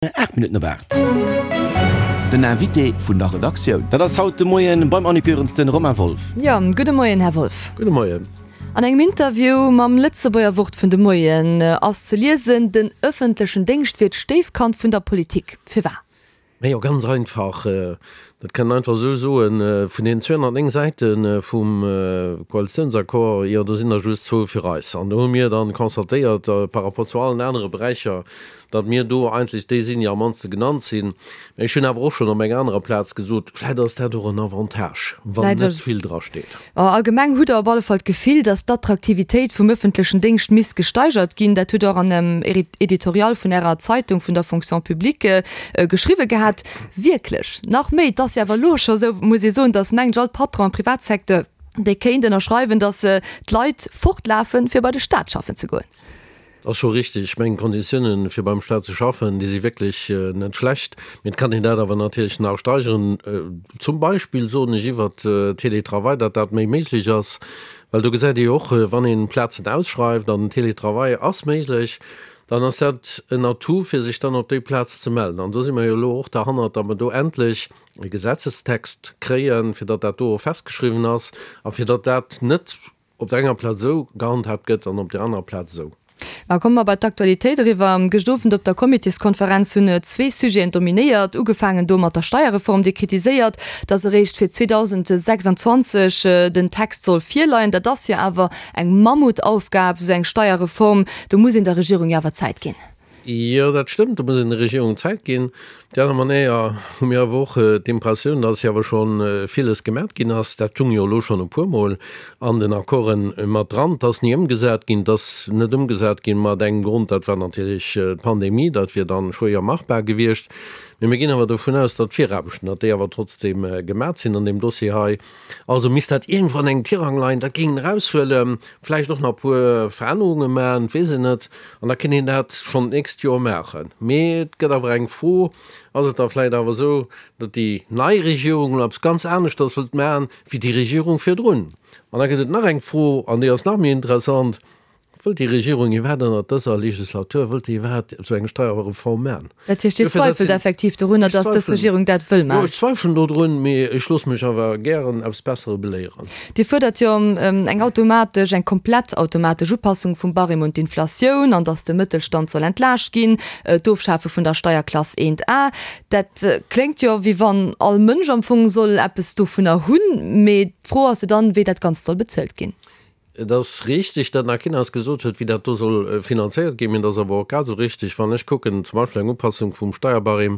8 Minutten op 8. Den Invité vun der Redaktioun. Dat ass haut de Moien beim Annick Goerens den Romain Wolff. Jo, gudde Moien, Här Wolff. Gudde Moien. An engem Interview mam Lëtzebuerger Wort vun de Moien ass ze liesen, den ëffentlechen Déngscht wier d'Stéifkand vun der Politik. Firwat? Majo, ganz einfach, dat kann een einfach esou soen, vun deenen 209 Säite vum Koalitiounsaccord, jo, do sinn der just zwou fir eis. An do hu mir dann constatéiert, par rapport zu allen anere Beräicher, datt mir do eigentlech déi sinn, déi am mannste genannt sinn. Mä ech hunn awer och schonn op enger anerer Plaz gesot, vläicht ass dat och en Avantage, wann net vill drasteet. Allgemeng hutt Der op alle Fall d'Gefill, datt d'Attraktivitéit vum ëffentlechen Déngscht misst gesteigert ginn. Dat hutt Der och an engem Editorial vun Ärer Zeitung, vun der Fonction publique, geschriwwe gehat. Wierklech? Nach méi, et ass jo awer elo scho esou, muss ee soen, datt mengt ech all Patron am Privatsecteur, dee kéint ënnerschreiwen, datt d'Leit fortlafen, fir bei de Staat schaffen ze goen. Ass scho richtig. Ech mengen, d'Konditiounen, fir beim Staat ze schaffen, déi si wierklech net schlecht. Mee et kann een dat awer natierlech nach steigeren. Zum Beispill, soen ech, iwwert Télétravail, datt dat méi méiglech ass. Well do gesäit ee jo och, wann ee Plazen ausschreift an den Télétravail ass méiglech, dann ass dat en Atout, fir sech dann op déi Plaz ze mellen. An do si mer jo elo och derhannert, datt mer do endlech e Gesetzestext kréien, fir datt dat do och festgeschriwwen ass a fir datt dat net op der enger Plaz esou gehandhaabt gëtt an op der anerer Plaz esou. Ma komme mer bei d'Aktualitéit eriwwer. Gëscht Owend op der Comitéskonferenz hunn zwee Sujeten dominéiert. Ugefaangen do mat der Steierreform, déi kritiséiert, datt eréischt fir 2026 den Text soll virleien. Dat ass jo awer eng Mammutaufgab, esou eng Steierreform. Do muss een der Regierung jo awer Zäit ginn. Jo, dat stëmmt, do muss een der Regierung Zäit ginn. Op déi aner Manéier hu mir awer och d'Impressioun, dass jo awer scho villes gemat ginn ass. Dat stung jo elo schonn e puermol an den Accorden mat dran. Et ass ni ëmgesat ginn. Et ass net ëmgesat ginn mat engem Grond, dat war natierlech d'Pandemie, dat wier dann schwéier machbar gewiescht. Mee mir ginn awer dovun aus, datt d'Viraarbechten, datt déi awer trotzdeem gemat sinn an deem Dossier hei. Also misst dat iergendwou an engem Tirang leien, dat géing een eraushuelen, vläicht och nach e puer Verännerunge maachen, et weess een net, an da kéint een dat schonn d'nächst Joer maachen. Mee et gëtt awer eng Fro, Ass et da vläicht awer esou, datt déi nei Regierung elo eppes ganz aneschters wëllt maachen, wéi déi Regierung virdrun? An da gëtt et nach eng Fro, an déi ass nach méi interessant, Wëllt déi Regierung iwwerhaapt ënnert dëser Legislatur, wëllt déi iwwerhaapt esou eng Steierreform maachen? Dat heescht, Dir zweifelt effektiv dorunner, datt dës Regierung dat wëll maachen? Jo, ech zweifelen dodrun, mee ech loosse mech awer gären eppes Bessere beléieren. Dir fuerdert jo eng automatesch, eng komplett automatesch Upassung vum Barème un d'Inflatioun an datt de Mëttelstand soll entlaascht ginn, d'Ofschafe vun der Steierklass 1A. Dat kléngt jo, wéi wann all Mënsch am Fong soll eppes dovunner hunn, mee d'Fro ass jo dann, wéi dat Ganzt soll bezuelt ginn. Et ass richtig, datt nach keen eis gesot huet, wéi dat do soll finanzéiert ginn. Mee et ass awer och grad esou richtig, wann ech kucken, zum Beispill eng Upassung vum Steierbarème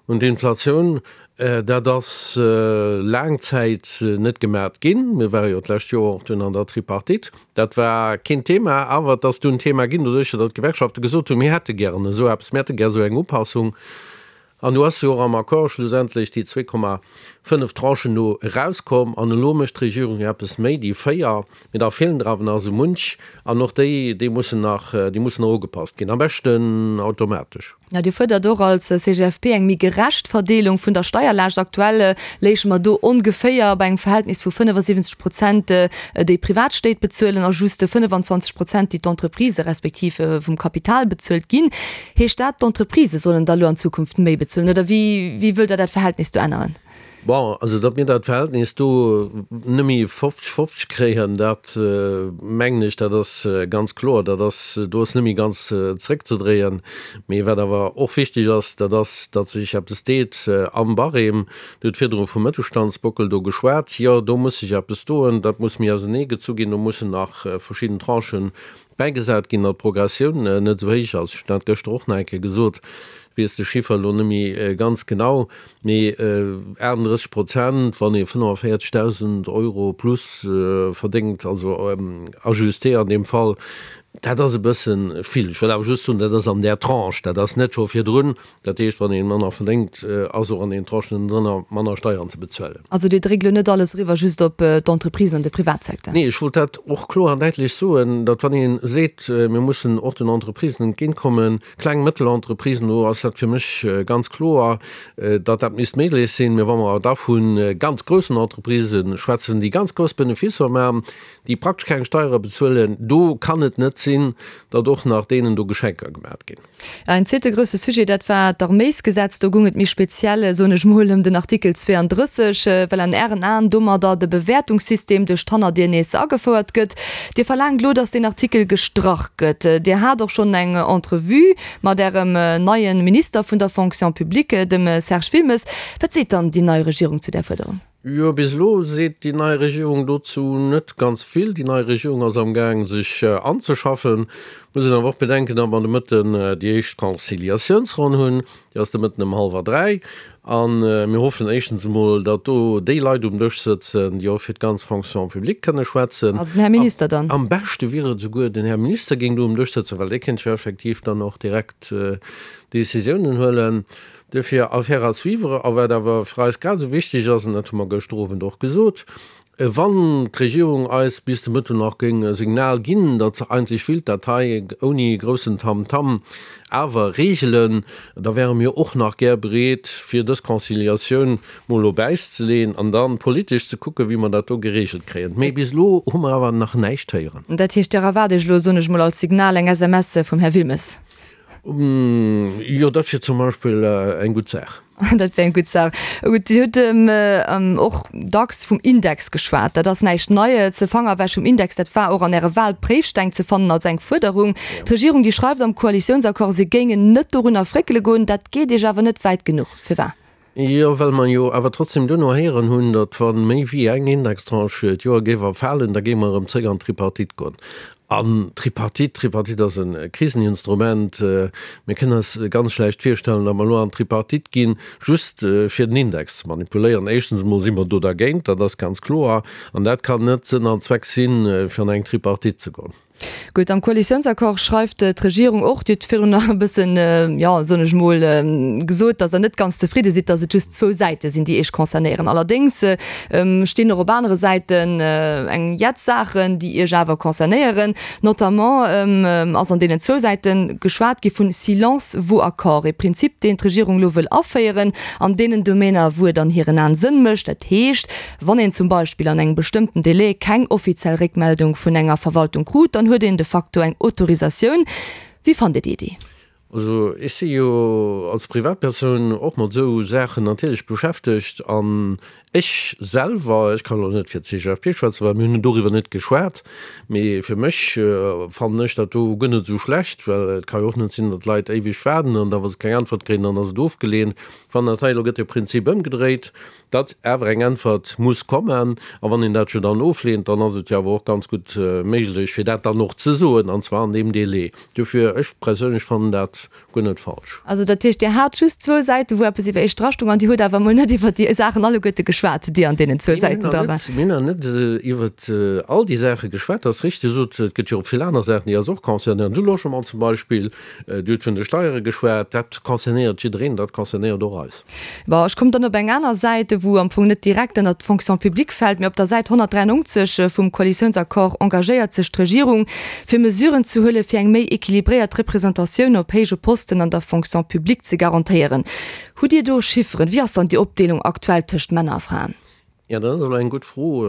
un d'Inflatioun, dat ass laang Zäit net gemat ginn. Mir ware jo d'lescht Joer och dunn an der Tripartite. Dat war keen Thema, awer et ass dunn Thema ginn, doduercher datt d'Gewerkschafte gesot hunn, mir hätte gären esou eppes, mir hätte gär esou eng Upassung. An do ass jo och am Accord schlussendlech déi 2,5 Tranchen do erauskomm. An elo mécht d'Regierung jo eppes méi, déi 4, mee da feelen der awer nach esou munch. An och déi, déi mussen nach, déi mussen nach ugepasst ginn, am beschten automatesch. Jo, Dir fuerdert och als CGFP eng méi gerecht Verdeelung vun der Steierlaascht. Aktuell léiche mer do ongeféier bei engem Verhältnis vu 75 Prozent, déi Privatstéit bezuelen a just 25 Prozent, déi d'Entreprisë respektiv vum Kapital bezuelt ginn. Heescht dat, d'Entreprisë sollen da lo an Zukunft méi bezuelen, oder wéi, wéi wëllt Der dat Verhältnis do änneren? Bon, also datt mir dat Verhältnis do net méi 50, 50 kréien, dat mengen ech, dat ass ganz kloer, dat ass, do ass net méi ganz zréckzedréien. Mee wat awer och wichteg ass, dat ass, datt sech eppes deet am Barème. Dir hutt virdru vum Mëttelstandsbockel do geschwat. Jo, do muss sech eppes doen, dat muss méi auserneegezu ginn, do mussen nach verschidden Tranchen Bäigesat ginn, datt d'Progressioun net esou héich ass. Ech hunn dat gëschter och nach eng Kéier gesot, ech weess de Chiffer elo net méi ganz genau, mee 38 Prozent, wann ee 45.000 Euro plus verdéngt, also ajusté an deem Fall, dat ass e bësse vill. Ech wëll awer just soen, dat ass an där Tranche, dat ass net scho virdrun. Dat heescht, wann ee manner verdéngt, ass och an deenen Tranchen ënnendrënner manner Steieren ze bezuelen. Also Dir dréckt elo net alles eriwwer just op d'Entreprisen an de Privatsecteur? Nee, ech wollt dat och kloer an däitlech soen, datt wann ee seet, mir mussen och den Entreprisen entgéintkommen, kleng, mëttel Entreprisen, do ass dat fir mech ganz kloer, datt dat misst méiglech sinn. Mä wa mer awer da vu ganz groussen Entreprisë schwätzen, déi ganz grouss Benefisser maachen, déi praktesch keng Steiere bezuelen, do kann et net. sinn, datt och nach deenen do Geschenker gemat ginn. En zweete grousse Sujet, dat war d'Arméisgesetz. Do goung et méi speziell, soen ech mol, ëm den Artikel 32, well an Ären Aen domadder de Bewäertungssystem duerch d'Hannerdier nees agefouert gëtt. Dir verlaangt elo, datt deen Artikel gestrach gëtt. Dir hat och schonn eng Entrevue mat Ärem neie Minister vun der Fonction publique, dem Serge Wilmes. Wat seet dann déi nei Regierung zu där Fuerderung? Jo, bis elo seet déi nei Regierung dozou net ganz vill. Déi nei Regierung ass am Gaang sech anzeschaffen. Muss een awer och bedenken, datt mer de Mëtten déi éischt Conciliatiounsronn hunn. Déi ass de Mëtten ëm hallwer 3. A mir hoffen éischtens emol, datt do déi Leit um Dësch sëtzen, déi och fir d'ganz Fonction publique kënne schwätzen. Also den Här Minister dann? Am beschte wier et esouguer, den Här Minister géing do um Dësch sëtzen, well dee kéint jo effektiv dann och direkt Décisiounen huelen. Duerfir Affaire à suivre. A wat awer fir eis grad esou wichteg ass, an dat hu mer gëschter Owend och gesot, Wann d'Regierung eis bis de Mëtten nach géing e Signal ginn, datt se eigentlech willt dat hei ouni groussen Tamtam awer regelen, da wäre mir och nach gär bereet, fir dës Conciliatioun mol op Äis ze leeën an da politesch ze kucken, wéi mer dat do geregelt kréien. Mee bis elo hu mer awer nach näischt héieren. Dat heescht, Dir erwaart Iech elo, soen ech mol, als Signal eng SMS vum Här Wilmes? Jo, dat wier zum Beispill eng gutt Saach. Dat wär eng gutt Saach. Gutt, Dir hutt och dacks vum Index geschwat. Dat ass näischt Neies. De Fanger ewech vum Index, dat war och an Äre Wahlpréifsteng ze fannen als eng Fuerderung. D'Regierung, déi schreift am Koalitiounsaccord, se géingen net dorunner fréckele goen. Dat geet Iech awer net wäit genuch. Firwat? Jo, well mer jo awer trotzdem duerno héieren hunn, datt wa méi wéi eng Indextranche d'Joer géif erfalen, da géinge mer erëm zréck an d'Tripartite goen. An d'Tripartite, d'Tripartite ass e Kriseninstrument. Mir kënnen eis ganz schlecht virstellen, datt mer elo an d'Tripartite ginn, just fir den Index ze manipuléieren. Éischtens emol si mer do dergéint, dat ass ganz kloer. An dat kann net Sënn an Zweck sinn, fir an eng Tripartite ze goen. Gutt, am Koalitiounsaccord schreift d'Regierung och, Dir hutt virun nach e bëssen, jo, soen ech emol, gesot, datt Der net ganz zefridde sidd, datt et just zwou Säite sinn, déi Iech concernéieren. Allerdéngs stinn och op anere Säiten eng Jett Saachen, déi Iech awer concernéieren. Notamment ass an deenen zwou Säite geschwat gi vun silence vaut accord, e Prinzip, deen d'Regierung elo wëll aféieren an deenen Domainer, wou et an hiren Aen Sënn mécht. Dat heescht, Wann een zum Beispill an engem bestëmmten Delai keng offiziell Réckmeldung vun enger Verwaltung krut, dann huet een de facto eng Autorisatioun. Wéi fannt Dir déi Iddi? Also ech si jo als Privatpersoun och mat esou Saachen natierlech beschäftegt an ech selwer, ech kann elo net fir d'CGFP schwätzen, well mir hunn doriwwer net geschwat, mee fir mech fannen ech dat do guer net esou schlecht, well et ka jo och net sinn, datt d'Leit éiweg waarden an da wa se keng Äntwert kréien, dann ass et ofgeleent. Wann dat hei elo gëtt de Prinzip ëmgedréit, Datt awer eng Äntwert muss kommen. A wann een dat jo dann ofleent, dann ass et jo awer och ganz gutt méiglech, fir dat dann och ze soen, an zwar an deem Délai. Dofir, ech perséinlech fannen dat guer net falsch. Also dat heescht, Dir hat just zwou Säiten, wou eppes iwwer Iech drastung, an Dir hutt awer emol net iwwer déi Saachen alleguerte geschwat, déi an deenen zwou Säiten dra waren. Mir hunn nach net iwwer all déi Saache geschwat, dat ass richtig. Dir sot, et gëtt jo och vill aner Saachen, déi eis och concernéieren. De Logement zum Beispill, Dir hutt vun de Steiere geschwat, dat concernéiert jiddereen, dat concernéiert och eis. Bon, ech kommen dann op eng aner Säit, wou am Fong net direkt ënnert d'Fonction publique fält, mee op der Säit 193 vum Koalitiounsaccord engagéiert sech d'Regierung, fir Mesuren ze huelen, fir eng méi équilibréiert Representatioun op héije Posten an der Fonction publique ze garantéieren. Hutt Dir do Chifferen? Wéi ass dann déi Opdeelung aktuell tëscht Männer a Fraen? Jo, dat ass elo eng gutt Fro,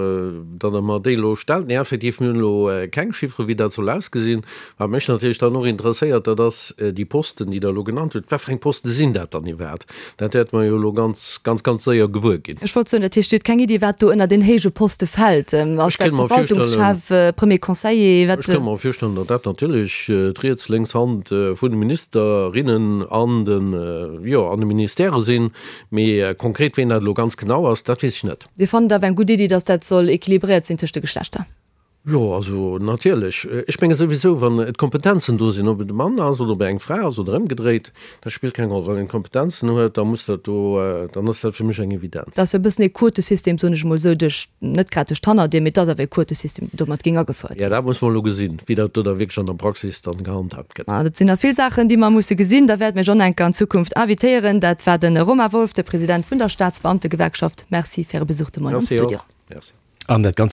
datt Der mer déi elo stellt. Nee, effektiv, mir hunn elo keng Chiffere wéi dat soll ausgesinn. Wat mech natierlech dann och interesséiert, dat ass déi Posten, déi Der elo genannt hutt. Wat fir eng Poste sinn dat dann iwwerhaapt? Dat wäerte mer jo elo ganz, ganz, ganz séier gewuer ginn. Ech wollt soen, dat heescht, Dir hutt keng Iddi, wat do ënner den héije Poste fält? Ass dat Verwaltungschef, Premier Conseiller? Ech kënnt mer virstellen, datt dat natierlech d'riets, lénks Hand vun de Ministerinnen an de, jo, an de Ministèrë sinn. Mee konkret ween dat elo ganz genau ass, dat weess ech net. Dir fannt et awer eng gutt Iddi, datt dat soll équilibréiert sinn tëscht de Geschlechter? Jo, also natierlech. Ech menge souwisou, wann d'Kompetenzen do sinn, ob et e Mann ass oder ob et eng Fra ass oder ëmgedréit, dat spillt keng Roll. Wann een d'Kompetenzen huet, da muss dat do, dann ass dat fir mech eng Evidenz. Dat ass jo e bëssen ee Quotesystem, soen ech emol esou, duerch, net grad duerch d'Hannerdier, mee et ass awer e Quotesystem, deen domat géing agefouert ginn. Jo, dat muss mer elo gesinn, wéi dat do da wierklech an der Praxis dann gehandhaabt gëtt. Dat sinn nach vill Saachen, déi mer musse gesinn. Da wäerte mir John Enker an Zukunft invitéieren. Dat war de Romain Wolff, de President vun der Staatsbeamtegewerkschaft. Merci fir Äre Besuch de Moien am Studio. An dat Ganzt.